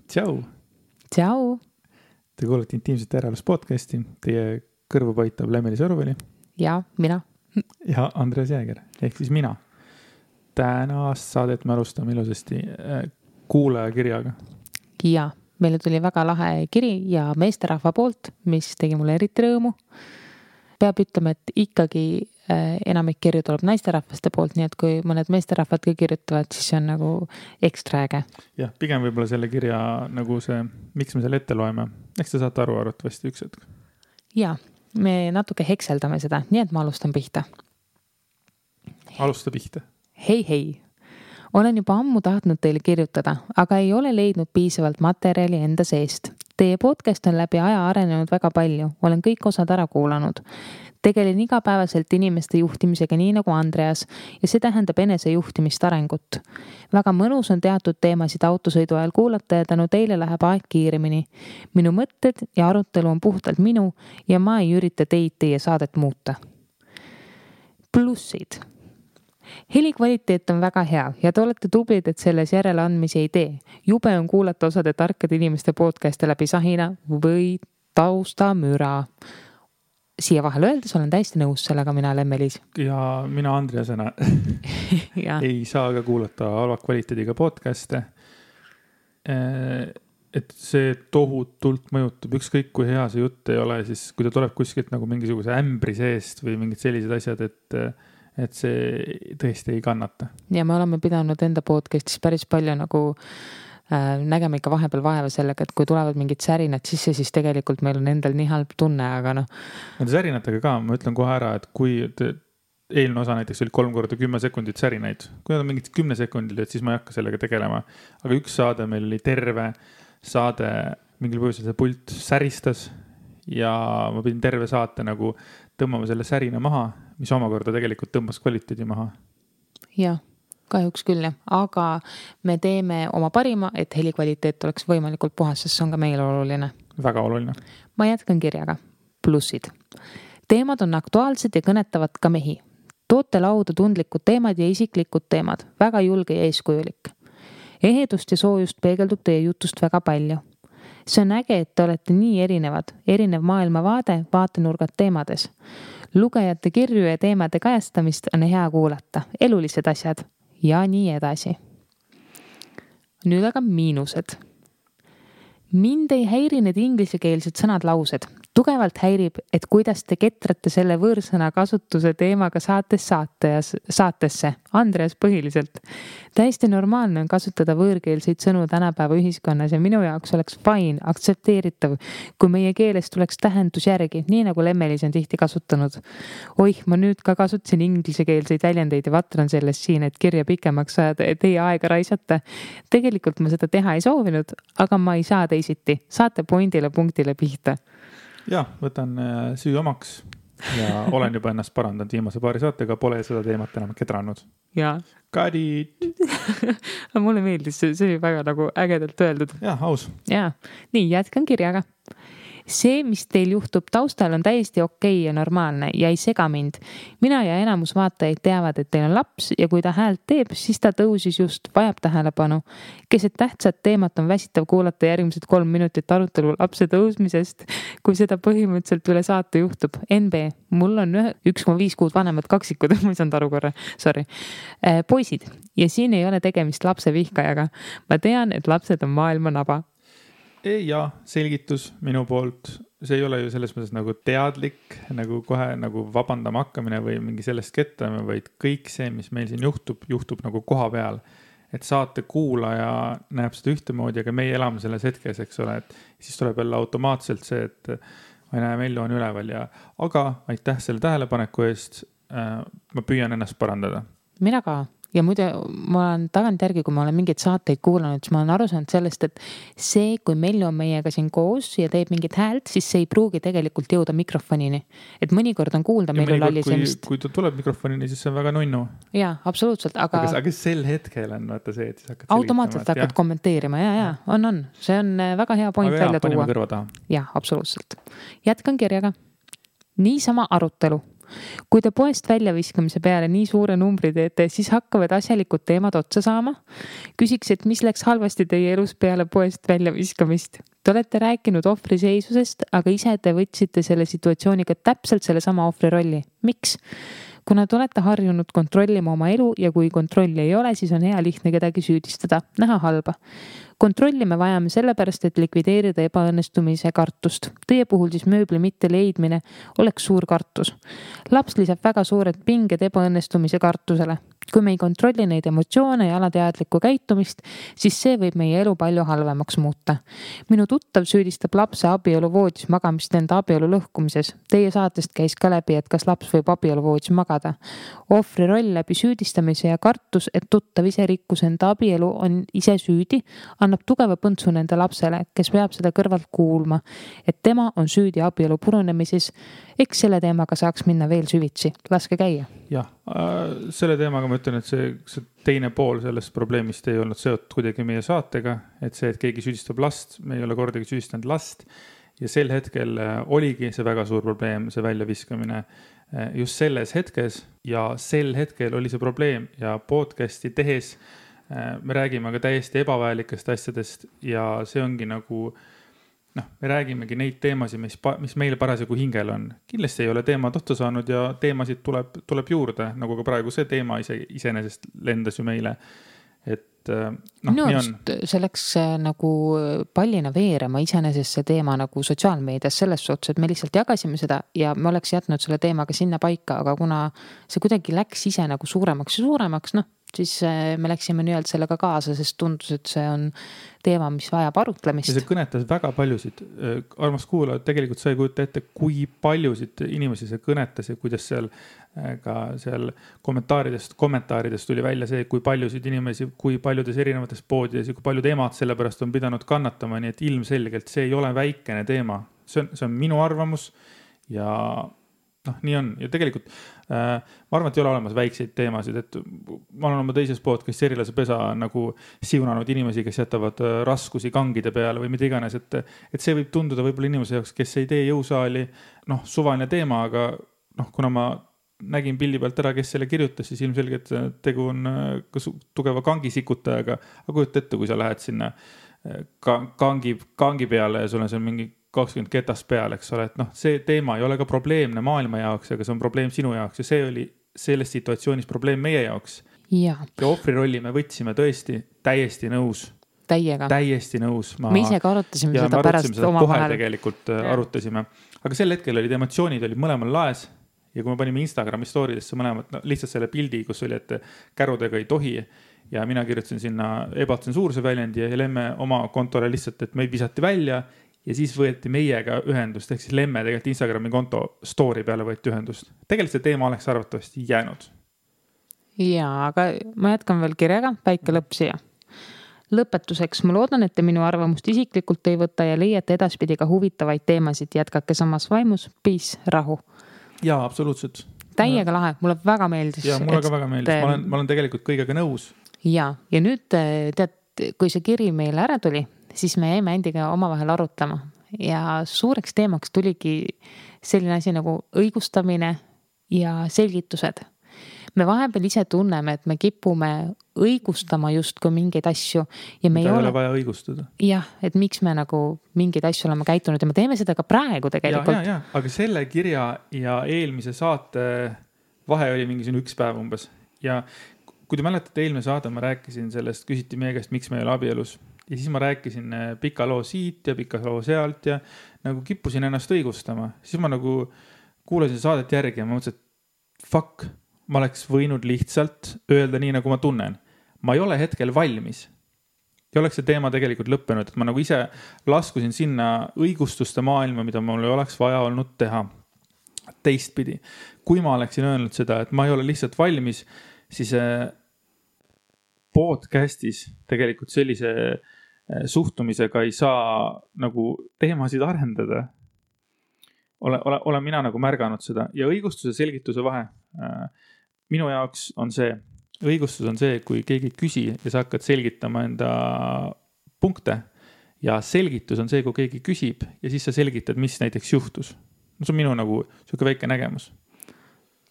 Tšau! Tšau! Te kuulete Intiimsete järelus podcasti. Teie kõrvu paitab Lemeli Sõruveli. Ja mina. Ja Andres Jääger, ehk siis mina. Tänast saadet me alustame ilusasti kuulajakirjaga. Ja meile tuli väga lahe kiri ja meesterahva poolt, mis tegi mulle eriti rõõmu. Peab ütlema, et ikkagi enamik kirju tuleb naisterahvaste poolt, nii et kui mõned meesterahvad ka kirjutavad, siis see on nagu ekstra äge. Jah, pigem võib-olla selle kirja nagu see, miks me selle ette loeme. Eks te saate aru arvatavasti üks hetk. Ja, me natuke hekseldame seda, nii et ma alustan pihta. Alusta pihta. Hei. Olen juba ammu tahtnud teile kirjutada, aga ei ole leidnud piisavalt materjali enda seest. Teie podcast on läbi aja arenenud väga palju. Olen kõik osad ära kuulanud. Tegelen igapäevaselt inimeste juhtimisega nii nagu Andreas ja see tähendab enesejuhtimist arengut. Väga mõnus on teatud teemasid autosõidu ajal kuulata ja tänu teile läheb aeg kiiremini. Minu mõtted ja arutelu on puhtalt minu ja ma ei ürita teie saadet muuta. Plussid. Heli kvaliteet on väga hea ja te olete tublid, et selles järeleandmisi ei tee. Jube on kuulata osade tarkade inimeste podcast'e läbi sahina või taustamüra. Siia vahel öeldes olen täiesti nõus sellega mina Lemmelis. Ja mina Andreasena ei saa ka kuulata halva kvaliteediga podcast'e. Et see tohutult mõjutab, ükskõik kui hea see jutt ei ole, siis kui ta tuleb kuskilt nagu mingisuguse ämbri seest või mingid sellised asjad, et see tõesti ei kannata. Ja me oleme pidanud enda podcastis päris palju nagu nägema ikka vahepeal vaeva sellega, et kui tulevad mingid särinad sisse, siis tegelikult meil on endal nii halb tunne, aga noh. Nende särinatega ka, ma ütlen kohe ära, et kui eelmine osa näiteks oli 3x10 sekundit särinaid, kui nad on mingid 10 sekundil, et siis ma ei hakka sellega tegelema. Aga üks saade meil oli terve saade, mingil põhjusel see pult säristas ja ma pidin terve saate nagu tõmbama selle särina maha, mis omakorda tegelikult tõmbas kvaliteedi maha. Jah. Kahjuks küll, aga me teeme oma parima, et heli kvaliteet oleks võimalikult puhas, sest see on ka meile oluline. Väga oluline. Ma jätkan kirjaga. Plussid. Teemad on aktuaalsed ja kõnetavad ka mehi. Toote lauda tundlikud teemad ja isiklikud teemad. Väga julge ja eeskujulik. Ehedust ja soojust peegeldub teie jutust väga palju. See on äge, et te olete nii erinevad. Erinev maailmavaade, vaatenurgad teemades. Lugejate kirju ja teemade kajastamist on hea kuulata. Elulised asjad. Ja nii edasi. Nüüd aga miinused. Mind ei häiri need inglisekeelsed sõnad laused. Tugevalt häirib, et kuidas te ketrate selle võõrsõna kasutuse teemaga saatesse. Andreas põhiliselt. Täiesti normaalne on kasutada võõrkeelseid sõnu tänapäeva ühiskonnas ja minu jaoks oleks fine, aktsepteeritav, kui meie keeles tuleks tähendus järgi, nii nagu Lemmelis on tihti kasutanud. Oih, ma nüüd ka kasutasin inglisekeelseid väljendeid ja vatran sellest siin, et kirja pikemaks saada ja teie aega raisata. Tegelikult ma seda teha ei soovinud, aga ma ei saa teisiti. Saate pointile punktile pihta. Ja, võtan süü omaks ja olen juba ennast parandanud viimase paari saatega, pole seda teemat enam kedranud. Ja. Got it! Mulle meeldis, see oli väga nagu ägedalt öeldud. Ja, aus. Ja, nii jätkan kirjaga. See, mis teil juhtub taustal, on täiesti okei ja normaalne ja ei sega mind. Mina ja enamus vaatajaid teavad, et teil on laps ja kui ta häält teeb, siis ta tõusis just, vajab tähelepanu. Keset tähtsat teemat on väsitav kuulata järgmised 3 minutit arutelu lapse tõusmisest, kui seda põhimõtteliselt üle saate juhtub. NB, mul on 1,5 kuud vanemad kaksikud, ma ei saanud aru korra, sorry. Poisid, ja siin ei ole tegemist lapse vihkajaga. Ma tean, et lapsed on maailma naba. Ja selgitus minu poolt, see ei ole ju selles mõttes nagu teadlik, nagu kohe nagu vabandama hakkamine või mingi sellest ketrame, vaid kõik see, mis meil siin juhtub nagu koha peal. Et saate kuulaja näeb seda ühtemoodi, aga meie elame selles hetkes, eks ole, et siis tuleb jälle automaatselt see, et ma ei näe Mellu on üleval ja aga aitäh selle tähelepaneku eest, ma püüan ennast parandada. Mina ka. Ja muide, ma olen tagant järgi, kui ma olen mingeid saateid kuulanud, siis ma olen aru saanud sellest, et see, kui Mellu on meiega siin koos ja teeb mingit häält, siis see ei pruugi tegelikult jõuda mikrofonini. Et mõnikord on kuulda Mellu lallisemist. Kui ta tuleb mikrofonini, siis see on väga nunnu. Jaa, absoluutselt. Aga sel hetkel on vaata see, et siis hakkad automaatselt hakkad kommenteerima. Ja, on. See on väga hea point välja tuua. Panime kõrva taha. Jaa, absoluutselt. Jätkan kirjaga. Niisama arutelu. Kui te poest väljaviskamise peale nii suure numbri teete, siis hakkavad asjalikud teemad otsa saama. Küsiks, et mis läks halvasti teie elus peale poest väljaviskamist? Te olete rääkinud ohvriseisusest, aga ise te võtsite selle situatsiooniga täpselt selle sama ohvri rolli. Miks? Kuna te olete harjunud kontrollima oma elu ja kui kontrolli ei ole, siis on hea lihtne kedagi süüdistada, näha halba. Kontrolli me vajame sellepärast, et likvideerida ebaõnnestumise kartust. Teie puhul siis mööbli mitte leidmine oleks suur kartus. Laps lisab väga suured pinged ebaõnnestumise kartusele. Kui me ei kontrolli neid emotsioone ja alateadlikku käitumist, siis see võib meie elu palju halvemaks muuta. Minu tuttav süüdistab lapse abieluvoodis magamist enda abielu lõhkumises. Teie saatest käis ka läbi, et kas laps võib abieluvoodis magada. Ohvri roll läbi süüdistamise ja kartus, et tuttav ise rikkus enda abielu, on ise süüdi, annab tugeva põntsu nende lapsele, kes peab seda kõrvalt kuulma, et tema on süüdi abielu purunemises. Eks selle teemaga saaks minna veel süvitsi. Laske käia. Jah, selle teemaga ma ütlen, et see teine pool sellest probleemist ei olnud seotud kuidagi meie saatega, et see, et keegi süüdistab last, me ei ole kordagi süüdistanud last ja sel hetkel oligi see väga suur probleem, see väljaviskamine just selles hetkes ja sel hetkel oli see probleem ja podcasti tehes me räägime ka täiesti ebavajalikest asjadest ja see ongi nagu me räägimegi neid teemasid, mis meil parasjagu hingel on. Kindlasti ei ole teemad otsa saanud ja teemasid tuleb juurde, nagu ka praegu see teema iseenesest lendas ju meile. Et nii on. See läks nagu pallina veerema iseenesest see teema nagu sotsiaalmeedias selles suhtes, et me lihtsalt jagasime seda ja me oleks jätnud selle teemaga sinna paika, aga kuna see kuidagi läks ise nagu suuremaks ja suuremaks, siis me läksime nii-öelda sellega kaasa, sest tundus, et see on teema, mis vajab arutlemist. Ja see kõnetas väga paljusid. Armas kuulajad, tegelikult sa ei kujuta ette, kui paljusid inimesi see kõnetas ja kuidas seal ka seal kommentaaridest tuli välja see, kui paljusid inimesi, kui paljudes erinevates poodides ja kui paljud emad sellepärast on pidanud kannatama, nii et ilmselgelt see ei ole väikene teema. See on minu arvamus ja nii on. Ja tegelikult ma arvan, et ei ole olemas väikseid teemasid, et ma olen oma teises podcastis Erilase pesa nagu siunanud inimesi, kes jätavad raskusi kangide peale või mida iganes, et see võib tunduda võib-olla inimese jaoks, kes ei tee jõusaali, suvaline teema, aga kuna ma nägin pildi pealt ära, kes selle kirjutas, siis ilmselgelt tegu on tugeva kangisikutajaga, aga kujuta ette, kui sa lähed sinna kangi peale ja sul on seal mingi 20 ketast peal, eks ole, et see teema ei ole ka probleemne maailma jaoks, aga see on probleem sinu jaoks ja see oli selles situatsioonis probleem meie jaoks. Ja ohvri rolli me võtsime tõesti täiesti nõus. Täiesti nõus. Me ise ka arutasime seda pärast oma vahel. Tegelikult arutasime. Aga sel hetkel olid emotsioonid olid mõlemal laes ja kui me panime Instagrami storidesse mõlemad, lihtsalt selle pildi, kus oli, et kärudega ei tohi ja mina kirjutasin sinna ebatsensuurse väljendi ja Lemme oma kontole lihtsalt, et meid visati välja ja siis võeti meiega ühendust, ehk siis Lemme tegelikult Instagrami konto story peale võeti ühendust. Tegelikult see teema oleks arvatavasti jäänud. Jaa, aga ma jätkan veel kirjaga, väike lõpp siia. Lõpetuseks, ma loodan, et te minu arvamust isiklikult ei võta ja leiate edaspidi ka huvitavaid teemasid. Jätkake samas vaimus, peace, rahu. Jaa, absoluutselt. Täiega lahe, mulle väga meeldis. Jaa, mulle ka väga meeldis. Ma olen tegelikult kõigega nõus. Jaa, ja nüüd tead, kui see kiri meile ära tuli, siis me jäime endiga omavahel arutama ja suureks teemaks tuligi selline asi nagu õigustamine ja selgitused. Me vahepeal ise tunneme, et me kipume õigustama justkui mingeid asju ja me ei ole vaja õigustada. Jah, et miks me nagu mingeid asju oleme käitunud ja me teeme seda ka praegu tegelikult. Ja. Aga selle kirja ja eelmise saate vahe oli mingi 1 päev umbes ja kui te mäletate eelmine saade, ma rääkisin sellest, küsiti meie käest, miks me ei ole abielus. Ja siis ma rääkisin pika loo siit ja pika loo sealt ja nagu kippusin ennast õigustama. Siis ma nagu kuulasin saadet järgi ja ma mõtlesin, et fuck, ma oleks võinud lihtsalt öelda nii, nagu ma tunnen. Ma ei ole hetkel valmis. Ja oleks see teema tegelikult lõppenud, et ma nagu ise laskusin sinna õigustuste maailma, mida mul ei oleks vaja olnud teha. Teistpidi, kui ma oleksin öelnud seda, et ma ei ole lihtsalt valmis, siis podcastis tegelikult sellise suhtumisega ei saa nagu teemasid arendada. Olen mina nagu märganud seda ja õigustuse selgituse vahe. Minu jaoks on see, õigustus on see, kui keegi küsi ja sa hakkad selgitama enda punkte ja selgitus on see, kui keegi küsib ja siis sa selgitad, mis näiteks juhtus. See on minu nagu selline väike nägemus.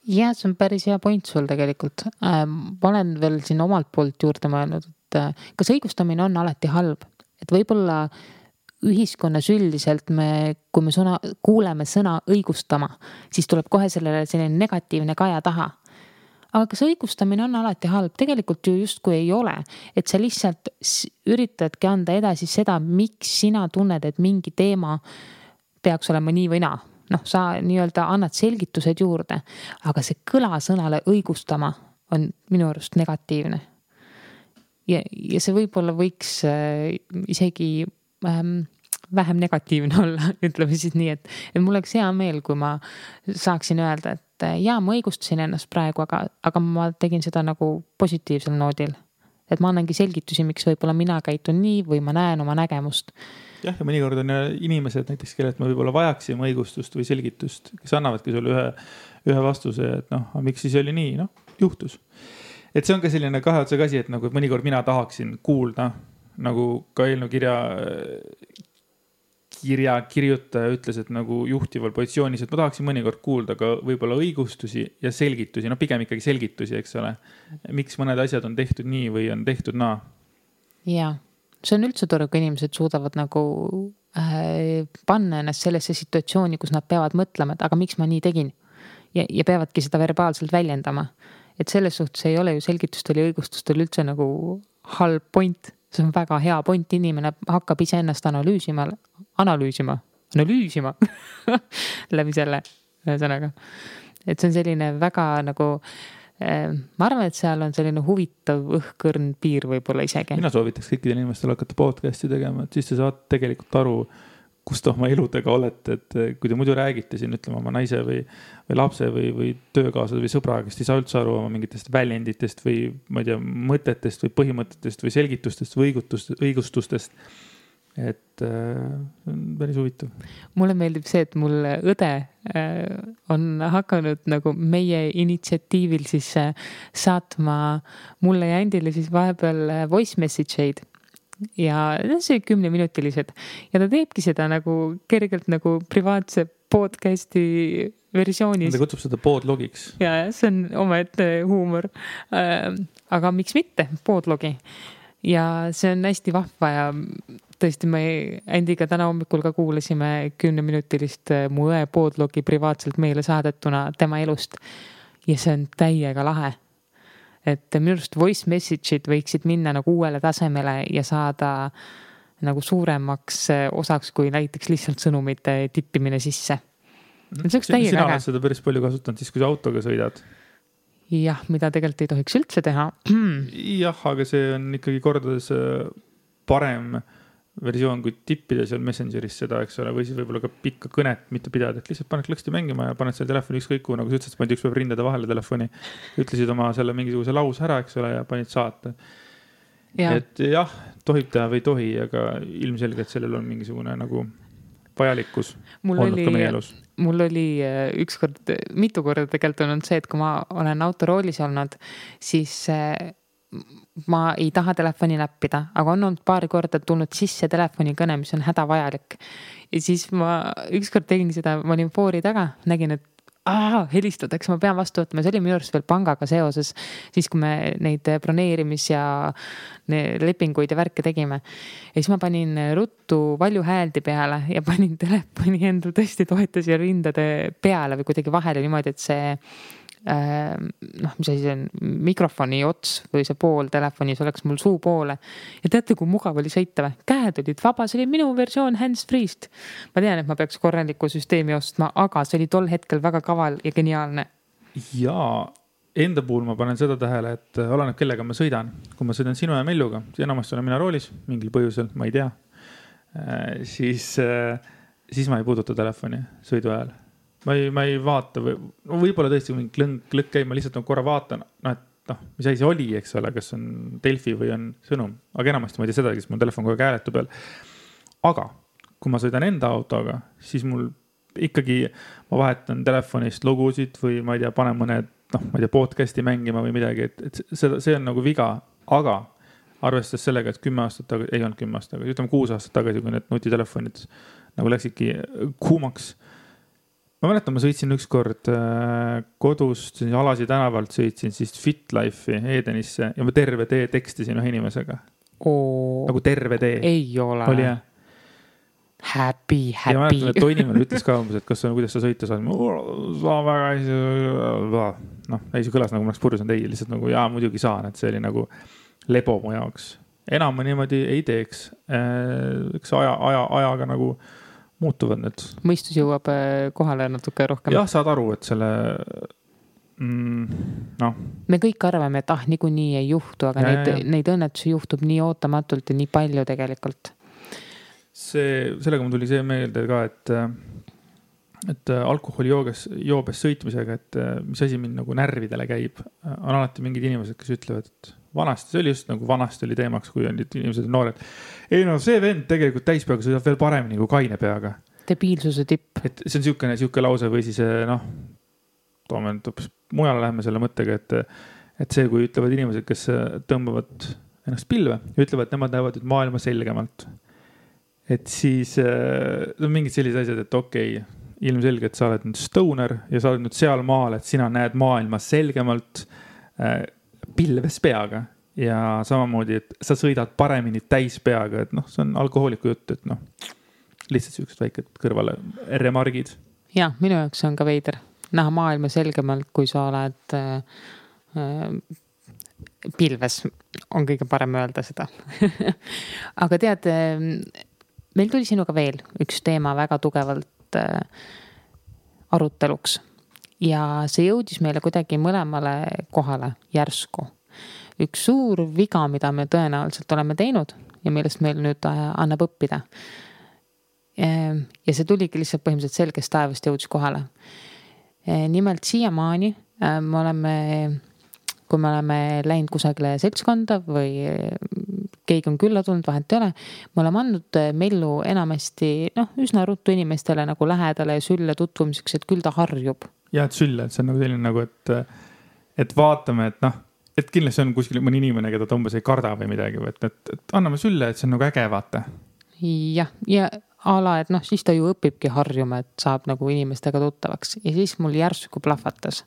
Ja, see on päris hea point sul tegelikult. Ma olen veel siin omalt poolt juurde mõelnud, et kas õigustamine on alati halb, et võib-olla ühiskonnas üldiselt kui me kuuleme sõna õigustama, siis tuleb kohe sellele selline negatiivne kaja taha. Aga kas õigustamine on alati halb? Tegelikult ju justkui ei ole, et sa lihtsalt üritadki anda edasi seda, miks sina tunned, et mingi teema peaks olema nii või naa. Sa nii-öelda annad selgitused juurde, aga see kõla sõnale õigustama on minu arust negatiivne. Ja see võib-olla võiks isegi vähem negatiivne olla, ütleme siis nii, et mul oleks hea meel, kui ma saaksin öelda, et jaa, ma õigustasin ennast praegu, aga ma tegin seda nagu positiivsel noodil. Et ma annangi selgitusi, miks võib-olla mina käitun nii või ma näen oma nägemust. Jah, ja mõnikord on inimesed näiteks, kellelt me võib-olla vajaksime õigustust või selgitust, kes annavadki sulle ühe vastuse, et miks siis oli nii, juhtus. Et see on ka selline kahe otsaga asi, et nagu mõnikord mina tahaksin kuulda, nagu ka eelnõu kirjutaja ütles, et nagu juhtival positsioonis, et ma tahaksin mõnikord kuulda ka võib-olla õigustusi ja selgitusi, pigem ikkagi selgitusi, eks ole. Miks mõned asjad on tehtud nii või on tehtud naa? Jaa. See on üldse tore, kui inimesed suudavad nagu panna ennast sellesse situatsiooni, kus nad peavad mõtlema, et aga miks ma nii tegin ja peavadki seda verbaalselt väljendama. Et selles suhtes ei ole ju selgitustel ja õigustustel üldse nagu halb point. See on väga hea point, inimene hakkab ise ennast analüüsima läbi selle sõnaga. Et see on selline väga nagu ma arvan, et seal on selline huvitav õhkõrn piir võib-olla isegi. Mina soovitaks kõikidel inimestel hakata podcasti tegema, et siis te saate tegelikult aru, kus te oma eludega olete, et kui te muidu räägite siin, ütleme oma naise või lapse või töökaaslased või sõbraga, kes ei saa üldse aru oma mingitest väljenditest või ma ei tea, mõtetest või põhimõtetest või selgitustest või õigustustest. Et on päris huvitav. Mulle meeldib see, et mul õde on hakanud nagu meie initsiatiivil siis saatma mulle ja Andile siis vahepeal voice message'eid. Ja see 10-minutilised. Ja ta teebki seda nagu kergelt nagu privaatse podcasti versioonis. Ta kutsub seda podlogiks. Ja see on omaette huumor. Aga miks mitte podlogi? Ja see on hästi vahva ja tõesti me Andiga täna hommikul ka kuulasime 10-minutilist mu õe podlogi privaatselt meile saadetuna tema elust. Ja see on täiega lahe. Et minu arust voice message'id võiksid minna nagu uuele tasemele ja saada nagu suuremaks osaks kui näiteks lihtsalt sõnumite tippimine sisse. Sina oled seda päris palju kasutanud siis, kui sa autoga sõidad. Jah, mida tegelikult ei tohiks üldse teha. Jah, aga see on ikkagi kordades parem versioon, kui tippida seal Messengeris seda, eks ole, või siis võib-olla ka pikka kõnet mitte pidada, et lihtsalt paned klõksti mängima ja paned selle telefoni ükskõik, nagu sa ütlesid, paned üks päev rindade vahele telefoni, ütlesid oma selle mingisuguse laus ära, eks ole, ja panid saata. Ja. Et jah, tohib teha või tohi, aga ilmselgelt sellel on mingisugune nagu vajalikkus olnud ka meie elus. Mul oli mitu korda tegelikult on see, et kui ma olen autoroolis olnud, siis ma ei taha telefoni näppida, aga on olnud paari korda tulnud sisse telefoni kõne, mis on hädavajalik. Ja siis ma ükskord tegin seda, ma olin foori taga, nägin, et helistatakse, ma pean vastu võtma. See oli minu arust veel pangaga seoses, siis kui me neid broneerimis- ja lepinguid ja värke tegime. Ja siis ma panin ruttu valju hääldi peale ja panin telefoni endal tõesti toetas ja rindade peale või kuidagi vahele niimoodi, et see mis asi see on, mikrofoni ots või see pool telefonis oleks mul suu poole. Ja teate, kui mugav oli sõita või? Käed olid vaba, see oli minu versioon hands-free'st. Ma tean, et ma peaks korraliku süsteemi ostma, aga see oli tol hetkel väga kaval ja geniaalne. Ja enda puhul ma panen seda tähele, et oleneb kellega ma sõidan. Kui ma sõidan sinu ja Melluga, enamasti olen mina roolis, mingil põhjusel, ma ei tea, siis ma ei puuduta telefoni sõidu ajal. Ma ei vaata võib-olla tõesti mingi klõkk käib, ma lihtsalt korra vaatan, et mis asi see oli, eks ole, kas on Delfi või on sõnum, aga enamasti ma ei tea seda, kes mul telefon kogu aeg hääletu peal. Aga kui ma sõidan enda autoga, siis mul ikkagi ma vahetan telefonist lugusid või ma ei tea, panen mõned, ma ei tea, podcasti mängima või midagi, et see on nagu viga, aga arvestades sellega, et 10 aastat tagasi, ei olnud 10 aastat tagasi, ütleme 6 aastat tagasi, kui need nutitelefonid nagu läksidki kuumaks, ma mäletan, ma sõitsin ükskord kodust, Alasi tänavalt sõitsin siis FitLife'i Edenisse ja ma terve tee tekstisin ühe inimesega. Nagu terve tee. Ei ole. Oli jah. Happy. Ja mäletan, et toinimene ütles ka umbes, et kuidas sa sõita saad. Saa väga ei, see kõlas nagu ma oleks purjus on teie, lihtsalt nagu muidugi saan, et see oli nagu lebo mu jaoks. Enam ma niimoodi ei teeks. Üks ajaga nagu muutuvad need. Mõistus jõuab kohale natuke rohkem. Jah, saad aru, et selle Me kõik arvame, et niikuinii ei juhtu, aga neid õnnetusi juhtub nii ootamatult ja nii palju tegelikult. Sellega mul tuli see meelde ka, et alkoholi joobes sõitmisega, et mis asi mind nagu närvidele käib, on alati mingid inimesed, kes ütlevad, et vanasti, see oli just nagu vanasti oli teemaks, kui on inimesed noored. Ei see vend tegelikult täispeaga sõidab veel paremini kui kaine peaga. Debiilsuse tipp. Et see on siuke lause või siis toome mujale läheme selle mõttega, et see, kui ütlevad inimesed, kes tõmbavad ennast pilve ja ütlevad, et nemad näevad maailma selgemalt. Et siis on mingid sellised asjad, et okei, ilmselgelt sa oled nüüd stoner ja sa oled nüüd seal maal, et sina näed maailma selgemalt pilves peaga ja samamoodi, et sa sõidad paremini täis peaga, et see on alkohooliku jutt, et lihtsalt siuksed väiked kõrvale remargid. Ja, minu jaoks on ka veider näha maailma selgemalt, kui sa oled pilves, on kõige parem öelda seda. Aga tead, meil tuli sinuga veel üks teema väga tugevalt aruteluks ja see jõudis meile kuidagi mõlemale kohale järsku. Üks suur viga, mida me tõenäoliselt oleme teinud ja millest meil nüüd annab õppida. Ja see tuligi lihtsalt põhimõtteliselt selgest taevast jõudis kohale. Nimelt siiamaani kui me oleme läinud kusagile seltskonda või keegi on külla tulnud, vahet ei ole, me oleme andnud mellu enamasti üsna ruttu inimestele nagu lähedale ja sülle tutvumiseks, et küll ta harjub. Ja, et sülle, et see on nagu selline nagu, et vaatame, et kindlasti on kuskil mõni inimene, keda ta umbes ei karda või midagi, et anname sülle, et see on nagu äge vaata. Ja ala, et siis ta ju õpibki harjuma, et saab nagu inimestega tuttavaks ja siis mul järsku plahvatas.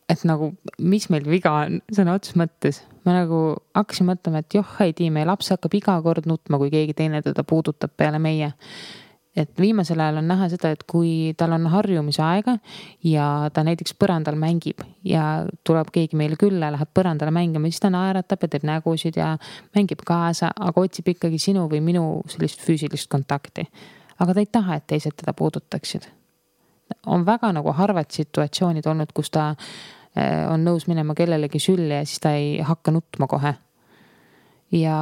Et nagu, mis meil viga on, sõna otsus mõttes. Ma nagu hakkasin mõtlema, et ei tii, meie laps hakkab iga kord nutma, kui keegi teine teda puudutab peale meie. Et viimasel ajal on näha seda, et kui tal on harjumise aega ja ta näiteks põrandal mängib ja tuleb keegi meile külla, läheb põrandale mängima, siis ta naeratab ja teeb nägusid ja mängib kaasa, aga otsib ikkagi sinu või minu sellist füüsilist kontakti. Aga ta ei taha, et teised teda puudutaksid. On väga nagu harvad situatsioonid olnud, kus ta on nõus minema kellelegi sülle ja siis ta ei hakka nutma kohe. Ja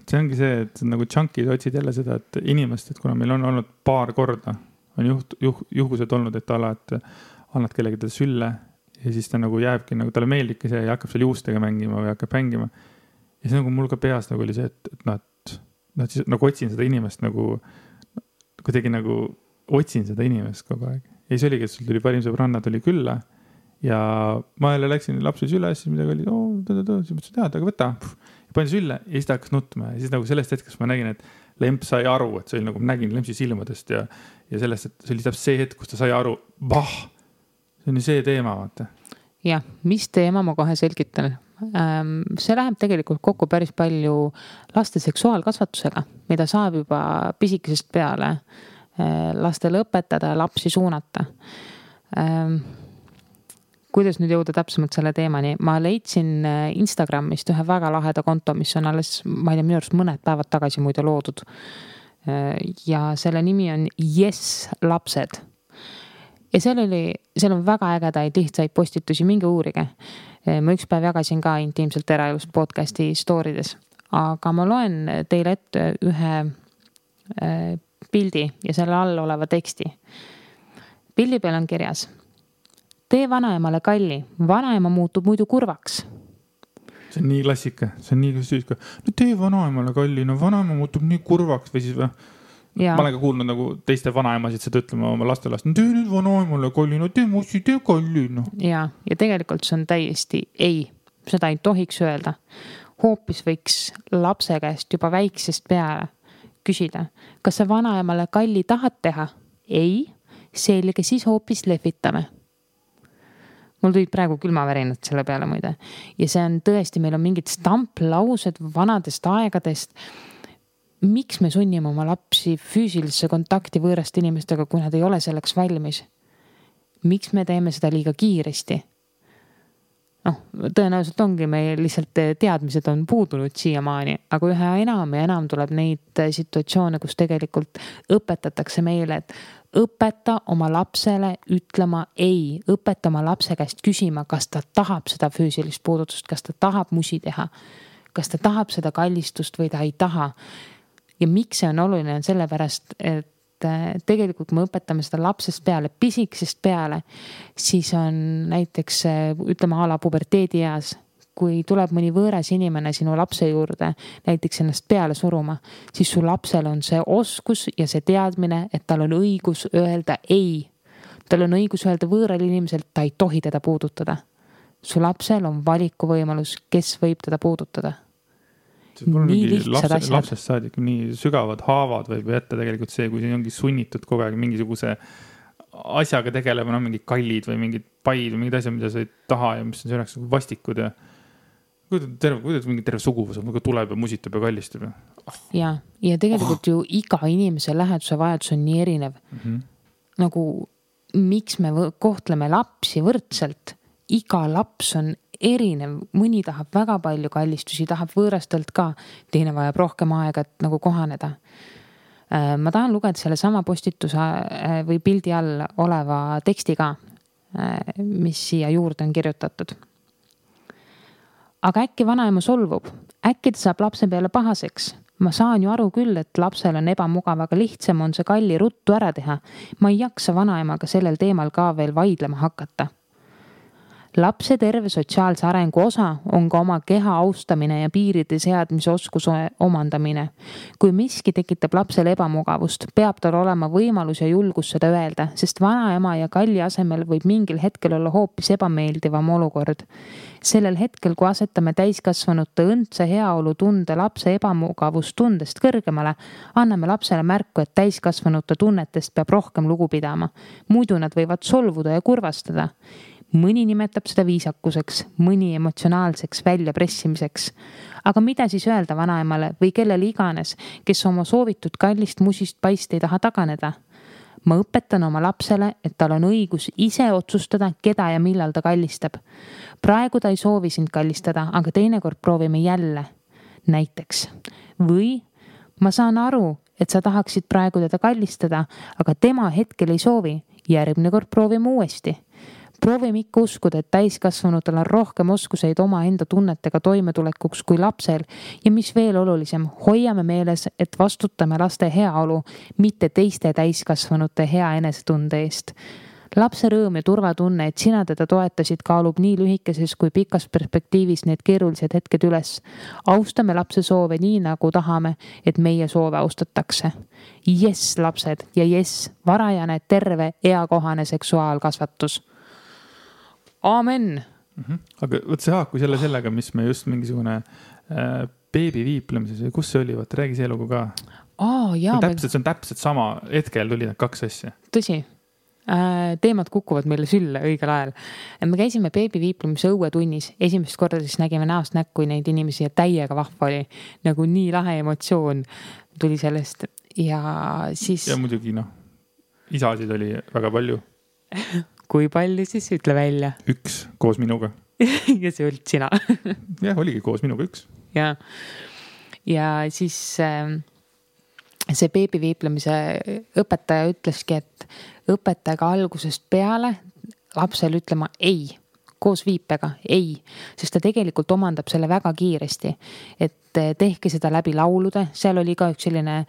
see ongi see, et nagu junkid otsid jälle seda, et inimest, et kuna meil on olnud paar korda, on juhused olnud, et alati annad kellegi teda sülle ja siis ta nagu jääbki, nagu talle meeldibki see ja hakkab seal juustega mängima või hakkab mängima. Ja see nagu mul ka peas nagu oli see, et siis nagu otsin seda inimest nagu kuidagi nagu otsin seda inimest kogu aeg. Ja siis oligi, et sul tuli parim sõbranna tuli külla ja ma jälle läksin lapsi sülle, siis midagi oli, siis mõtlesin, aga võta. Ja panin sülle ja siis ta hakkas nutma ja siis nagu sellest hetkest ma nägin, et lemp sai aru, et see oli nagu nägin lempsi silmadest ja sellest, et see oli täpselt see hetk, kus ta sai aru, see on see teema, vaata. Jah, mis teema ma kohe selgitan. See läheb tegelikult kokku päris palju laste seksuaalkasvatusega, mida saab juba pisikesest peale lastele õpetada ja lapsi suunata. Kuidas nüüd jõuda täpsemalt selle teemani? Ma leidsin Instagramist ühe väga laheda konto, mis on alles, ma ei tea, minu arust mõned päevad tagasi muide loodud. Ja selle nimi on Yes lapsed. Ja seal on väga ägedaid lihtsaid postitusi, minge uurige. Ma üks päev jagasin ka intiimselt eraelust podcasti stoorides, aga ma loen teile ette ühe pildi ja selle all oleva teksti. Pildi peal on kirjas: tee vanaemale kalli, vanaema muutub muidu kurvaks. See on nii klassika, see on nii klassika. No tee vanaemale kalli, no vanaema muutub nii kurvaks või siis või? Ma olen ka kuulnud nagu teiste vanaemasid seda ütlema oma lastelast. No tee nüüd vanaemale kalli, no tee mussi, tee kalli. No. Ja tegelikult see on täiesti ei, seda ei tohiks öelda. Hoopis võiks lapse käest juba väiksest peale küsida, kas sa vanaemale kalli tahad teha? Ei. selge, siis hoopis lehvitame. Mul tulid praegu külmavärinad selle peale muide. Ja see on tõesti, meil on mingid stamplaused vanadest aegadest. Miks me sunnime oma lapsi füüsilisse kontakti võõraste inimestega, kui nad ei ole selleks valmis? Miks me teeme seda liiga kiiresti? Tõenäoliselt ongi meil lihtsalt teadmised on puudunud siiamaani, aga üha enam ja enam tuleb neid situatsioone, kus tegelikult õpetatakse meile, et õpeta oma lapsele ütlema ei, õpeta oma lapse käest küsima, kas ta tahab seda füüsilist puudutust, kas ta tahab musi teha, kas ta tahab seda kallistust või ta ei taha. Ja miks see on oluline, on sellepärast, et tegelikult kui me õpetame seda lapsest peale, pisikesest peale, siis on näiteks, ütleme ala puberteedi eas, kui tuleb mõni võõras inimene sinu lapse juurde, näiteks ennast peale suruma, siis su lapsel on see oskus ja see teadmine, et tal on õigus öelda ei. Tal on õigus öelda võõral inimeselt, ta ei tohi teda puudutada. Su lapsel on valikuvõimalus, kes võib teda puudutada. Nii lihtsad asjad. Lapsest saadik nii sügavad haavad võib jätta tegelikult see, kui see ongi sunnitud kogu aeg mingisuguse asjaga tegelema, mingid kallid või mingid paid või mingid asjad, mida sa ei taha ja mis on selleks vastikud ja kuidas mingi terve suguvus tuleb ja musitab ja kallistab. Ja tegelikult ju iga inimese läheduse vajadus on nii erinev. Nagu miks me kohtleme lapsi võrdselt? Iga laps on erinev, mõni tahab väga palju kallistusi, tahab võõrastelt ka, teine vajab rohkem aega, et nagu kohaneda. Ma tahan lugeda selle sama postituse või pildi all oleva teksti ka, mis siia juurde on kirjutatud. Aga äkki vanaema solvub, äkki ta saab lapse peale pahaseks. Ma saan ju aru küll, et lapsel on ebamugav, aga lihtsam on see kalli ruttu ära teha. Ma ei jaksa vanaemaga sellel teemal ka veel vaidlema hakata. Lapse terve sotsiaalse arengu osa on ka oma keha austamine ja piiride seadmise oskuse omandamine. Kui miski tekitab lapsele ebamugavust, peab tal olema võimalus ja julgus seda öelda, sest vanaema ja kalli asemel võib mingil hetkel olla hoopis ebameeldivam olukord. Sellel hetkel, kui asetame täiskasvanute õndse heaolu tunde lapse ebamugavust tundest kõrgemale, anname lapsele märku, et täiskasvanute tunnetest peab rohkem lugu pidama. Muidu nad võivad solvuda ja kurvastada. Mõni nimetab seda viisakuseks, mõni emotsionaalseks väljapressimiseks. Aga mida siis öelda vanaemale või kellele iganes, kes oma soovitud kallist musist paist ei taha taganeda? Ma õpetan oma lapsele, et tal on õigus ise otsustada, keda ja millal ta kallistab. Praegu ta ei soovi sind kallistada, aga teinekord proovime jälle. Näiteks. Või ma saan aru, et sa tahaksid praegu teda kallistada, aga tema hetkel ei soovi. Järgmine kord proovime uuesti. Proovime ikka uskuda, et täiskasvanutel on rohkem oskuseid oma enda tunnetega toimetulekuks kui lapsel ja mis veel olulisem, hoiame meeles, et vastutame laste heaolu, mitte teiste täiskasvanute hea enesetunde eest. Lapse rõõm ja turvatunne, et sina teda toetasid, kaalub nii lühikeses kui pikas perspektiivis need keerulised hetked üles. Austame lapse soove nii nagu tahame, et meie soove austatakse. Yes, lapsed ja yes, varajane, terve, eakohane seksuaalkasvatus. Aamen. Aga võt see haaku sellega, mis me just mingisugune beebi viiplemises või kus see oli, räägi see lugu ka. See on täpselt sama hetkel tuli need kaks asja. Tõsi, teemad kukuvad meile sülle õigel ajal. Me käisime beebi viiplemise õuetunnis, esimest korda siis nägime näost näkku neid inimesi ja täiega vahva oli, nagu nii lahe emotsioon tuli sellest ja siis... Ja muidugi isasid oli väga palju. Kui palju siis ütle välja? 1 koos minuga. Ja see olid sina. Jah, oligi koos minuga 1. Ja siis see beebi viiplemise õpetaja ütleski, et õpetajaga algusest peale lapsel ütlema ei, koos viipega ei, sest ta tegelikult omandab selle väga kiiresti, et tehke seda läbi laulude, seal oli ka üks selline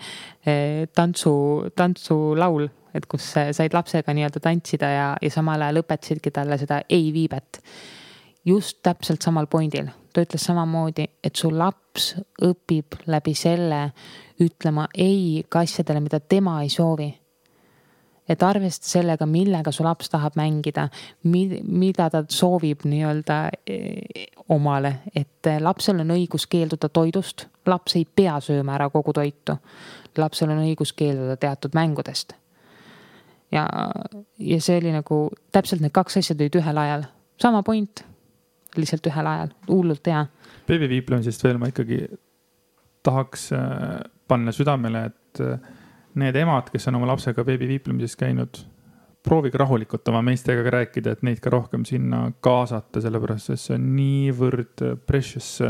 tantsulaul, et kus said lapsega nii-öelda tantsida ja samal ajal õpetasidki talle seda ei viibet. Just täpselt samal pointil. Ta ütles samamoodi, et su laps õpib läbi selle ütlema ei ka asjadele, mida tema ei soovi. Et arvesta sellega, millega su laps tahab mängida, mida ta soovib nii-öelda omale, et lapsel on õigus keelduda toidust, laps ei pea sööma ära kogu toitu, lapsel on õigus keelduda teatud mängudest. ja see oli nagu täpselt need kaks asja tulid ühel ajal. Sama point, lihtsalt ühel ajal, hullult hea. Beebiviiplemisest veel ma ikkagi tahaks panna südamele, et need emad, kes on oma lapsega beebiviiplemises käinud, proovige rahulikult oma meestega rääkida, et neid ka rohkem sinna kaasata, sellepärast, et see on niivõrd precious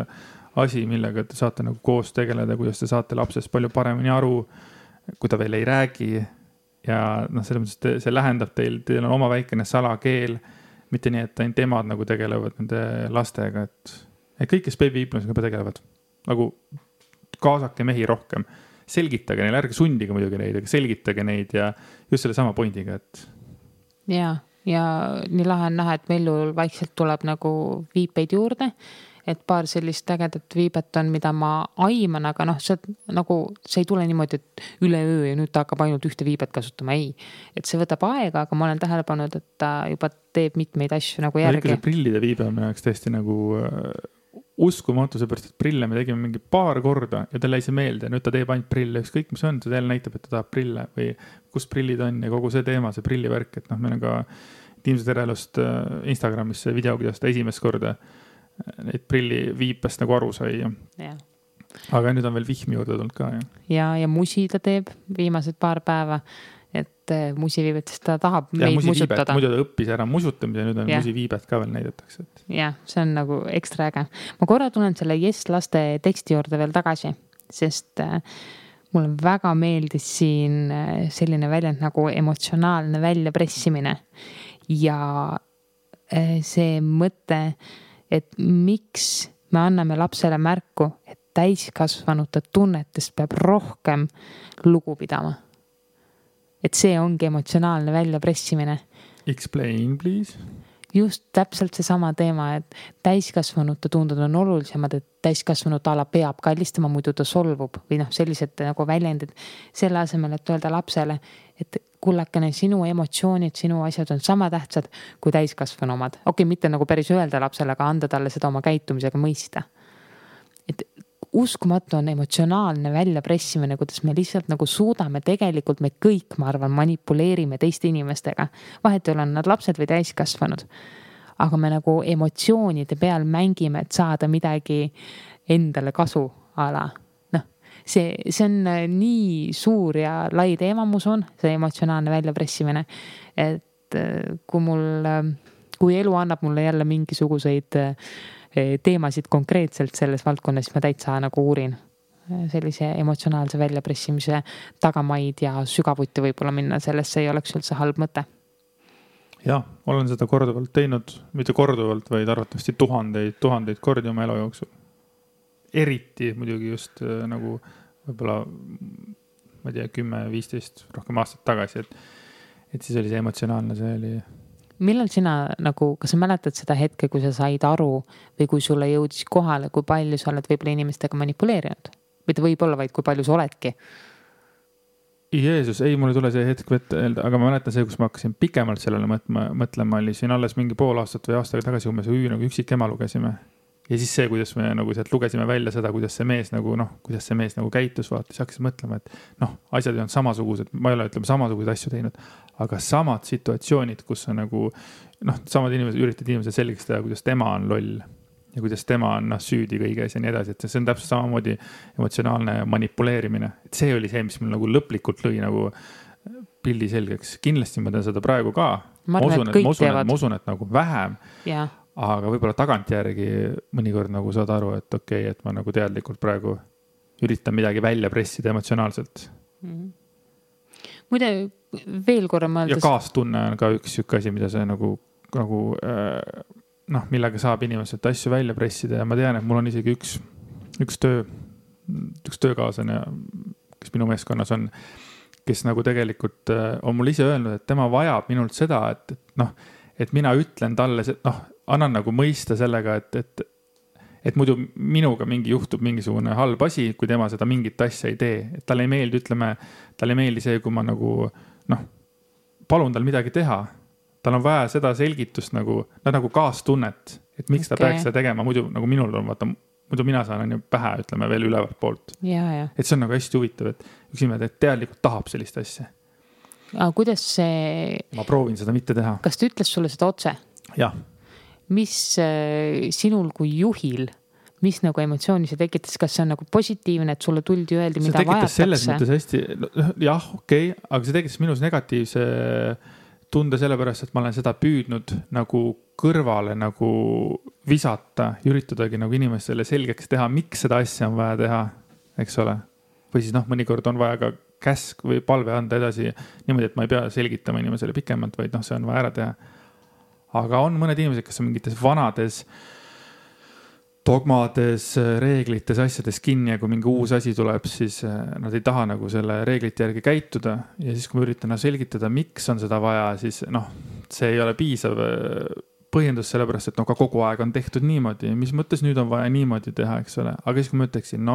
asi, millega te saate nagu koos tegeleda, kuidas te saate lapsest palju paremini aru, kui ta veel ei räägi. Ja noh, selles mõttes see lähendab teil on oma väikene salakeel, mitte nii, et ainult emad nagu tegelevad nende lastega, et kõik, kes beebiviiplemisega tegelevad, nagu kaasake mehi rohkem, selgitage neile, ärge sundige muidugi neid, aga selgitage neid ja just selle sama pointiga, et. Ja nii lahe on näha, et Mellul vaikselt tuleb nagu viipeid juurde, et paar sellist ägedat viibet on, mida ma aiman, aga noh, see ei tule niimoodi, et üleöö ja nüüd ta hakkab ainult ühte viibet kasutama, ei. Et see võtab aega, aga ma olen tähele pannud, et ta juba teeb mitmeid asju nagu järgi. See prillide viibe on minu jaoks tõesti nagu uskumatu, seepärast, et prille me tegime mingi paar korda ja talle jäi see meelde. Nüüd ta teeb ainult prille, ükskõik mis on, see jälle näitab, et ta tahab prille või kus prillid on ja kogu see teema, see prillivärk, et noh, meil on ka Tiimse Terelust Instagramis see video, kuidas ta esimest korda neid prilli viipest nagu aru sai. Ja. Aga nüüd on veel vihmi juurde tulnud ka. Ja musi ta teeb viimased paar päeva, et musiviibetest ta tahab meid musutada. Muidu ta õppis ära musutamise ja nüüd on musiviibet ka veel näidatakse. Ja, see on nagu ekstra äge. Ma korra tulen selle Yes laste teksti juurde veel tagasi, sest mulle väga meeldis siin selline väljend nagu emotsionaalne väljapressimine ja see mõte, et miks me anname lapsele märku, et täiskasvanute tunnetest peab rohkem lugu pidama. Et see ongi emotsionaalne väljapressimine. Explain, please. Just täpselt see sama teema, et täiskasvanute tunded on olulisemad, et täiskasvanute ala peab kallistama, muidu ta solvub või noh, sellised nagu väljendid selle asemel, et öelda lapsele, et kullakene, sinu emotsioonid, sinu asjad on sama tähtsad kui täiskasvanu omad. Okei, mitte nagu päris öelda lapsele, aga anda talle seda oma käitumisega mõista. Et uskumatu on emotsionaalne väljapressimine, kuidas me lihtsalt nagu suudame tegelikult me kõik, ma arvan, manipuleerime teiste inimestega. Vahet ei ole nad lapsed või täiskasvanud. Aga me nagu emotsioonide peal mängime, et saada midagi endale kasu ala. See on nii suur ja lai teema, mus on see emotsionaalne väljapressimine, et kui elu annab mulle jälle mingisuguseid teemasid konkreetselt selles valdkonnas, siis ma täitsa nagu uurin sellise emotsionaalse väljapressimise tagamaid ja sügavuti võib-olla minna, sellesse ei oleks üldse halb mõte. Jah, olen seda korduvalt teinud, mitte korduvalt, vaid arvatavasti tuhandeid kordi oma elu jooksul. Eriti muidugi just nagu võib-olla, ma ei tea, 10-15 rohkem aastat tagasi, et siis oli see emotsionaalne, see oli. Millal sina nagu, kas sa mäletad seda hetke, kui sa said aru või kui sulle jõudis kohale, kui palju sa oled võib-olla inimestega manipuleerinud? Või ta võib olla vaid, kui palju sa oledki? Jeesus, ei, mulle tule see hetk öelda, aga ma mäletan see, kus ma hakkasin pikemalt sellele mõtlema, oli siin alles mingi pool aastat või aastaga tagasi, kui me nagu üksik ema lugesime. Ja siis see, kuidas me nagu sealt lugesime välja seda, kuidas see mees nagu käitus, vaata, siis hakkasin mõtlema, et asjad on samasugused, ma ei ole samasuguseid asju teinud, aga samad situatsioonid, kus on nagu, samad inimesed, üritad inimesed selgeks teha, kuidas tema on loll ja kuidas tema on süüdi kõiges ja nii edasi, et see on täpselt samamoodi emotsionaalne manipuleerimine. Et see oli see, mis mul nagu lõplikult lõi nagu pildi selgeks. Kindlasti ma teen seda praegu ka. Ma usun, et nagu vähem. Ja. Aga võib-olla tagantjärgi mõnikord nagu saad aru, et okei, et ma nagu teadlikult praegu üritan midagi välja pressida emotsionaalselt. Muide, veel korra mõeldes. Ja kaastunne on ka üks asi, mida see nagu millega saab inimeselt asju välja pressida ja ma tean, et mul on isegi üks töökaaslane, kes minu meeskonnas on, kes nagu tegelikult on mul ise öelnud, et tema vajab minult seda, et mina ütlen talle, annan nagu mõista sellega, et muidu minuga juhtub mingisugune halb asi, kui tema seda mingit asja ei tee. Et talle ei meeldi see, kui ma nagu, palun tal midagi teha. Tal on vaja seda selgitust nagu kaastunnet, et miks ta peaks seda tegema. Muidu nagu minul on, vaata, muidu mina saan pähe, ütleme veel ülevalt poolt. Ja. Et see on nagu hästi huvitav, et üks inimene teadlikult tahab sellist asja. Aga kuidas see... Ma proovin seda mitte teha. Kas ta ütles sulle seda otse? Jah. Mis sinul kui juhil, mis nagu emotsiooni see tekitas? Kas see on nagu positiivne, et sulle tuldi öeldi, mida vajatakse? See tekitas selles mõttes hästi, jah, okei, aga see tekitas minus negatiivse tunde sellepärast, et ma olen seda püüdnud nagu kõrvale nagu visata, üritadagi nagu inimestele selgeks teha, miks seda asja on vaja teha, eks ole. Või siis mõnikord on vaja ka käsk või palve anda edasi niimoodi, et ma ei pea selgitama inimesele pikemalt, vaid see on vaja ära teha. Aga on mõned inimesed, kes on mingites vanades dogmades, reeglites, asjades kinni ja kui mingi uus asi tuleb, siis nad ei taha nagu selle reeglite järgi käituda. Ja siis, kui ma üritan selgitada, miks on seda vaja, siis see ei ole piisav põhjendus sellepärast, et ka kogu aeg on tehtud niimoodi. Mis mõttes nüüd on vaja niimoodi teha, eks ole. Aga siis, kui ma ütleksin,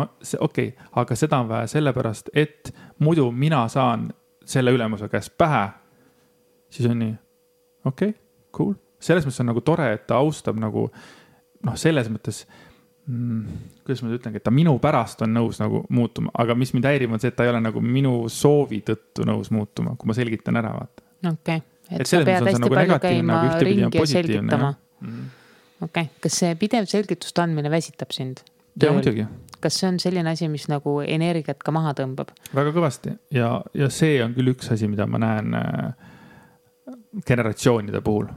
okei, aga seda on vaja sellepärast, et muidu mina saan selle ülemuse käest pähe, siis on nii, okei, cool. Selles mõttes on nagu tore, et ta austab nagu, selles mõttes, kuidas ma ütlengi, et ta minu pärast on nõus nagu muutuma, aga mis mind häirib on see, et ta ei ole nagu minu soovi tõttu nõus muutuma, kui ma selgitan ära, vaata. Okei, et sa pead hästi palju käima ringi ja selgitama. Okei, kas see pidev selgitust andmine väsitab sind? Ja, muidugi. Kas see on selline asi, mis nagu energiat ka maha tõmbab? Väga kõvasti ja see on küll üks asi, mida ma näen generatsioonide puhul.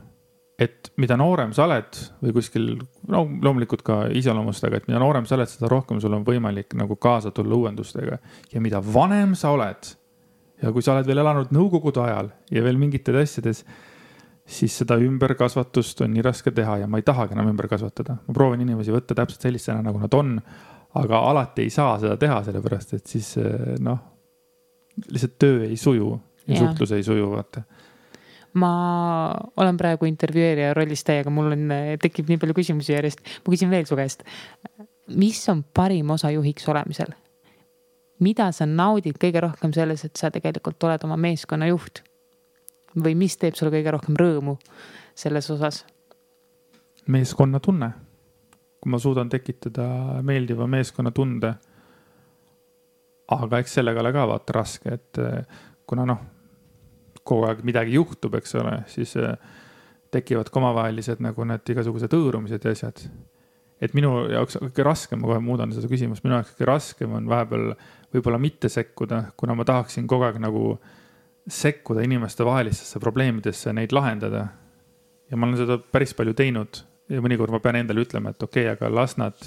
Et mida noorem sa oled või kuskil, loomulikult ka iseloomustega, et mida noorem sa oled, seda rohkem sul on võimalik nagu kaasa tulla uuendustega. Ja mida vanem sa oled ja kui sa oled veel elanud nõukogude ajal ja veel mingites asjades, siis seda ümberkasvatust on nii raske teha ja ma ei tahagi enam ümber kasvatada. Ma proovin inimesi võtta täpselt sellistena, nagu nad on, aga alati ei saa seda teha, sellepärast, et siis lihtsalt töö ei suju ja suhtlus ei suju, vaata. Ma olen praegu intervjueerija rollis täiega, mul tekib nii palju küsimusi järjest. Ma küsin veel su käest. Mis on parim osa juhiks olemisel? Mida sa naudid kõige rohkem selles, et sa tegelikult oled oma meeskonna juht? Või mis teeb sulle kõige rohkem rõõmu selles osas? Meeskonna tunne. Kui ma suudan tekitada meeldiva meeskonna tunde. Aga eks sellega ole ka vaata raske, et kuna kogu aeg midagi juhtub, eks ole, siis tekivad omavahelised nagu need igasugused õõrumised ja asjad. Et minu jaoks kõige raskem, ma kohe muudan seda küsimust, minu jaoks kõige raskem on vahepeal võib-olla mitte sekkuda, kuna ma tahaksin kogu aeg nagu sekkuda inimeste vahelistesse probleemidesse, neid lahendada. Ja ma olen seda päris palju teinud ja mõnikord ma pean endale ütlema, et okei, aga las nad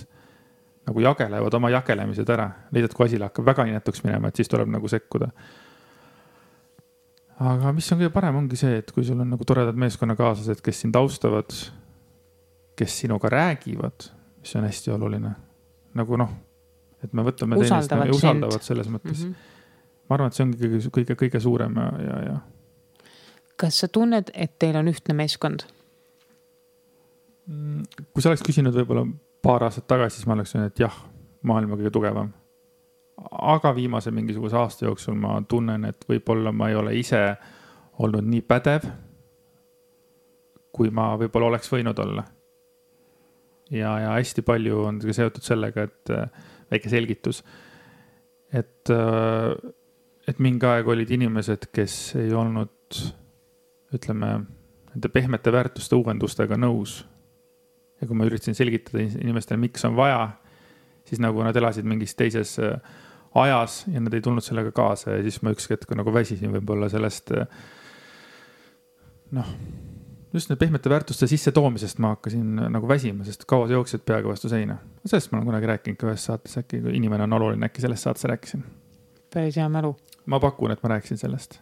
nagu jagelevad oma jagelemised ära. Leidad, kui asi hakkab väga inetuks minema, et siis tuleb nagu sekkuda. Aga mis on kõige parem ongi see, et kui sul on nagu toredad meeskonnakaaslased, kes sind austavad, kes sinuga räägivad, mis on hästi oluline. Nagu et me võtame usaldavad selles mõttes. Ma arvan, et see ongi kõige suurem ja. Kas sa tunned, et teil on ühtne meeskond? Kui sa oleks küsinud võib-olla paar aastat tagasi, siis ma oleks öelnud, et jah, maailma kõige tugevam. Aga viimase mingisuguse aasta jooksul ma tunnen, et võib-olla ma ei ole ise olnud nii pädev, kui ma võib-olla oleks võinud olla. Ja hästi palju on seotud sellega, et väike selgitus, et mingi aeg olid inimesed, kes ei olnud, ütleme, nende pehmete väärtuste uuendustega nõus. Ja kui ma üritasin selgitada inimestele, miks on vaja, siis nagu nad elasid mingis teises ajas ja nad ei tulnud sellega kaasa ja siis ma üks hetk nagu väsisin võib-olla sellest just need pehmete väärtuste sisse toomisest ma hakkasin nagu väsima, sest kaua sa jooksid peaga vastu seina. Sellest ma olen kunagi rääkinud ka ühes saates, äkki kui inimene on oluline, äkki sellest saates rääkisin. Päris hea mälu. Ma pakun, et ma rääkisin sellest.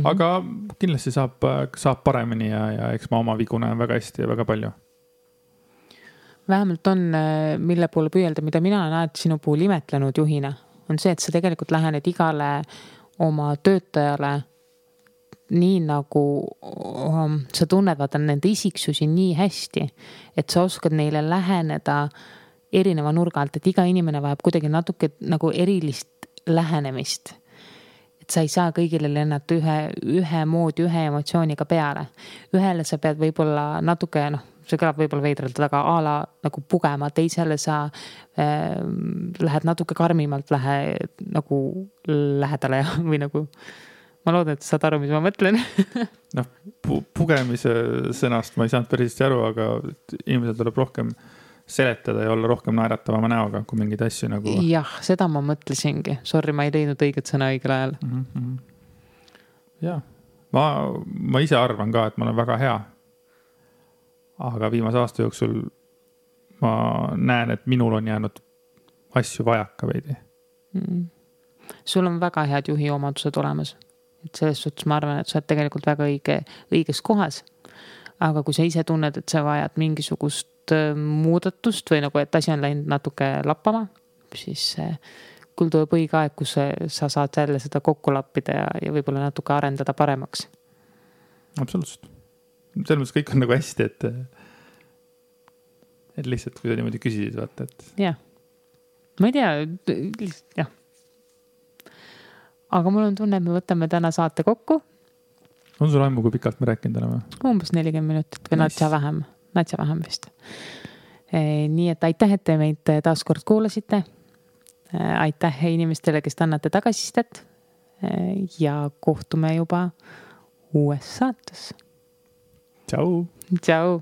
Aga kindlasti saab paremini ja eks ma oma vigu näen väga hästi ja väga palju. Vähemalt on, mille poole püüelda, mida mina näed sinu puhul imetlenud juhina, on see, et sa tegelikult lähened igale oma töötajale nii nagu sa tunned vaata nende isiksusi nii hästi, et sa oskad neile läheneda erineva nurga alt, et iga inimene vajab kuidagi natuke nagu erilist lähenemist. Et sa ei saa kõigile lennata ühe moodi, ühe emotsiooniga peale. Ühele sa pead võib-olla natuke, see kõlab võib-olla veidralt, aga ala nagu pugema, teisele sa lähed natuke karmimalt nagu lähedale või nagu ma loodan, et saad aru, mis ma mõtlen. Noh, pugemise sõnast ma ei saanud päris hästi aru, aga inimesel tuleb rohkem seletada ja olla rohkem naeratavama näoga, kui mingeid asju nagu... Jah, seda ma mõtlesingi. Sorry, ma ei leidnud õiget sõna õigel ajal. Jah, ma ise arvan ka, et ma olen väga hea. Aga viimase aasta jooksul ma näen, et minul on jäänud asju vajaka veidi. Sul on väga head juhi omadused olemas. Et selles suhtes ma arvan, et sa oled tegelikult väga õiges kohas. Aga kui sa ise tunned, et sa vajad mingisugust muudatust või nagu, et asi on läinud natuke lappama, siis küll tuleb õige aeg, kus sa saad jälle seda kokku lappida ja võib-olla natuke arendada paremaks. Absoluutselt. Selles mõttes kõik on nagu hästi, et lihtsalt kui sa niimoodi küsisid, vaata, et... Jah. Ma ei tea, lihtsalt, jah. Aga mul on tunne, et me võtame täna saate kokku. On sul aimu, kui pikalt me rääkinud oleme? Umbes 40 minutit või natsa vähem vist. Nii et aitäh, et te meid taas kord kuulasite. Aitäh inimestele, kes annate tagasistet ja kohtume juba uues saates. Tšau! Tšau!